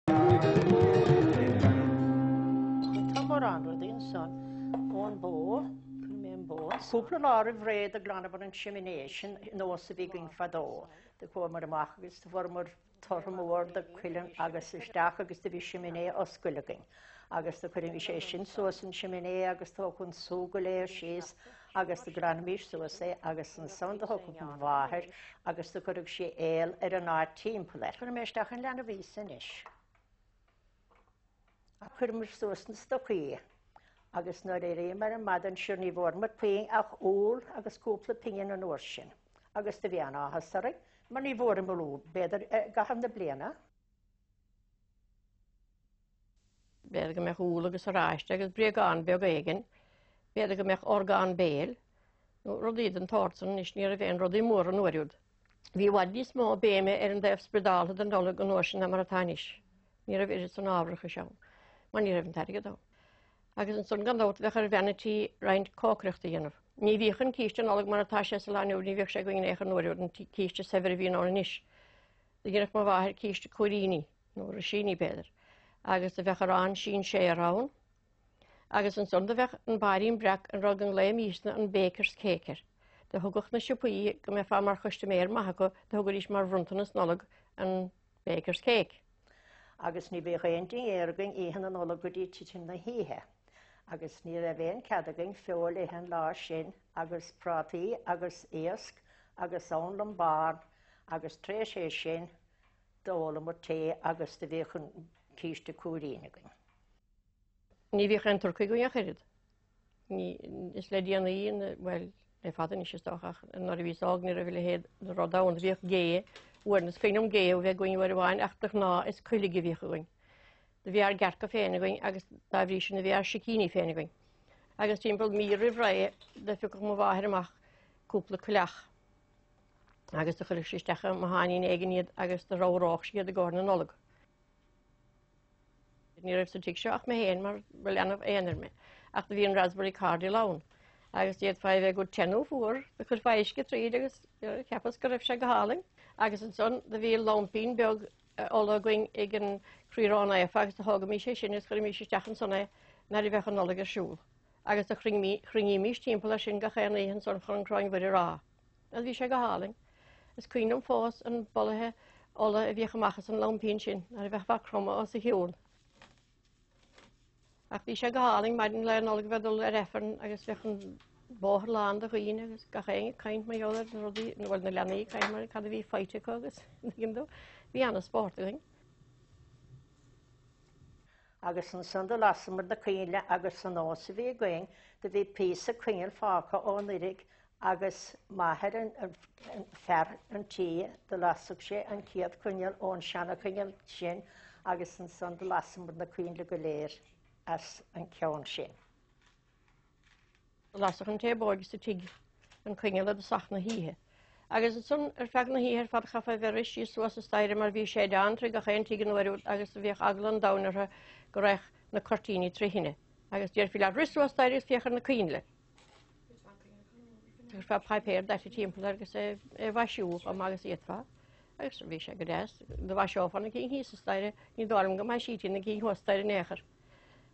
Tá mórán rudaí ansan ón bó, chuir mé an bó. Cúpla lá roimh ré do ghlanamar an siminé, sin nós a bhí againn fadó. Do chuamar amach agus do fuaireamar tortha mór de cuileann agus isteach agus do bhí siminé oscailte againn. Agus do chuirimis é sin suas an siminé agus do thiocfadh an sú go léir síos agus do ghlanaimis suas é agus ansan do thiocfadh mo mháthair agus do chuireadh sí aol ar an áit timpeall air. Cuirfidh mé isteach an leanbh Íosa anois. Chuireamar suas na stocaí agus nuair a éiríomar ar maidin sure ní bhfuaireamar puinn ach úll agus cúpla pingin an uair sin agus do bhí an-áthas orainn mar ní bhfuaireamar úll b'fhéidir i gcaitheamh na bliana. B'fhéidir go mbeadh úll agus oráiste agus bréagán beag éigin, b'fhéidir go mbeadh orgán béil nó rudaí den tsórt san anois ní raibh aon rudaí móra an uair úd. Bhí i bhfad níos mó béime ar an dtaobh spioradálta den Nollaig an uair sin ná mar atá anois. Ní raibh oiread san ábharachais ann, mar ní raibh an t-airgead ann. Agus ansan gan dabht bheadh ar bhean an tí roinnt cócaireachta a dhéanamh. Ní bhíodh an císte Nollag mar atá sé sa lá inniu, ní bhíodh sé againn in aon chor an uair úd, an císte saibhir a bhíonn ann anois. Do dhéanfadh mo mháthair císte cúiríní, nó risíní b'fhéidir, agus do bheadh arán sinséar ann, Agus ansan do bheadh an bairín breac, an rud go nglaoimísne an baker's cake air. Do thugadh na siopaí, go mbeifeá mar chustaiméir maith acu, do thugaidís mar bhronntanas Nollag an baker's cake. Agus ní bhíodh aon dinnéar againn oíche na Nollag go dtí titim na hoíche. Agus ní raibh aon cead againn feoil a ithe an lá sin agus prátaí agus iasc agus anlann bán agus tar éis é sin d'ólamar tae agus do bhíodh an císte cúirín againn. Ní bhíodh aon turcaí againn ach oiread. Ní, is le déanaí, bhuel, le fada anois is dócha, ach nuair a bhíos óg ní raibh a leithéid de rud ann. Bhíodh gé, uair, is cuimhin liom gé a bheith againn uair amháin ach de ghnáth is coiligh a bhíodh againn. Do bhí ár gcearca féin againn agus dá bhrí sin do bhí ár sicíní féin againn. Agus timpeall mí roimh ré do phiocadh mo mháthair amach cúpla coileach agus do chuireadh sí isteach i mbotháinín éigin iad agus do ramhródh sí iad i gcomhair na Nollag. Ní raibh sa tigh seo ach mé féin mar ba leanbh aonair mé, ach do bhí an raspberry cordial ann agus d'fhéadfá é a bheith go te nó fuar, do chuirfeá uisce tríd agus cheapas go raibh sé go hálainn. Agus ansan do bhí laimpín beag ola againn ag an Croí Ró-Naofa agus do thógaimís é sin agus chuirimís isteach ansan é nuair a bheadh an Nollaig ar siúl. Agus do chruinnímís timpeall air sin gach aon oíche ansan chun an Choróin Mhuire a rá. Agus bhí sé go hálainn. Is cuimhin liom fós an bolaithe ola a bhíodh amach as an laimpín sin nuair a bheifeá ag cromadh os a chionn. Ach bhí sé go hálainn maidin Lá Nollag a bheith ag dul ar Aifreann agus bheadh an bóthar lán de dhaoine agus gach éinne ag caint mar gheall ar na rudaí, nó bhuel na leanaí ag caint mar cad a bhí faighte acu agus tuigeann tú, bhí ana-spórt againn. Agus ansan do lasamar na coinnle agus sa nós a bhí againn do bhí píosa coinneal fágtha ó anuraidh agus m'athair an fear an tí do lasadh sé an chéad choinneal ón seana-choinneal sin agus ansan do lasamar na coinnle go léir as an ceann sin. Lasadh an té b'óige sa tigh an coinneal i dtosach na hoíche. Agus ansan ar feadh na hoíche ar fad chaithfeá a bheith ag rith síos suas an staighre mar bhí séideán trí gach aon tigh an uair úd agus bhíodh eagla an domhain orthu go raghadh na cuirtíní trí thine. Agus déarfaí leat rith suas staighre agus féach ar na coinnle. Chuirfeá páipéar daite timpeall air agus é a mhaisiú chomh maith agus a d'fhéadfá. Agus bhí sé go deas. Do mhaiseofá na cinn thíos an staighre, ní dóigh liom go maisítí na cinn thuas staighre in aon chor.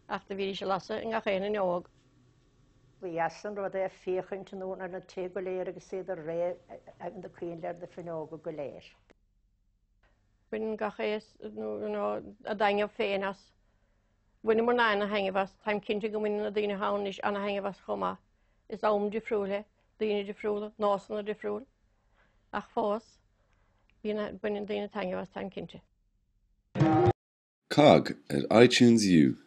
Ach do bhídís ag lasadh i ngach aon fhuinneog. Ba dheas an rud é féachaint anonn ar na tithe go léir agus iad ag rith na coinnle ar na fuinneoga go léir. Baineann gach aos nó a dtaitneamh féin as. Bhaineamarna ana-thaitneamh as. Táim cinnte go mbaineann na daoine atá ann anois ana-thaitneamh as chomh maith. Is am difriúil é, daoine difriúla, nósanna difriúil. Ach fós, bíonn, baineann daoine taitneamh as, táim cinnte. Cogg ar iTunes U.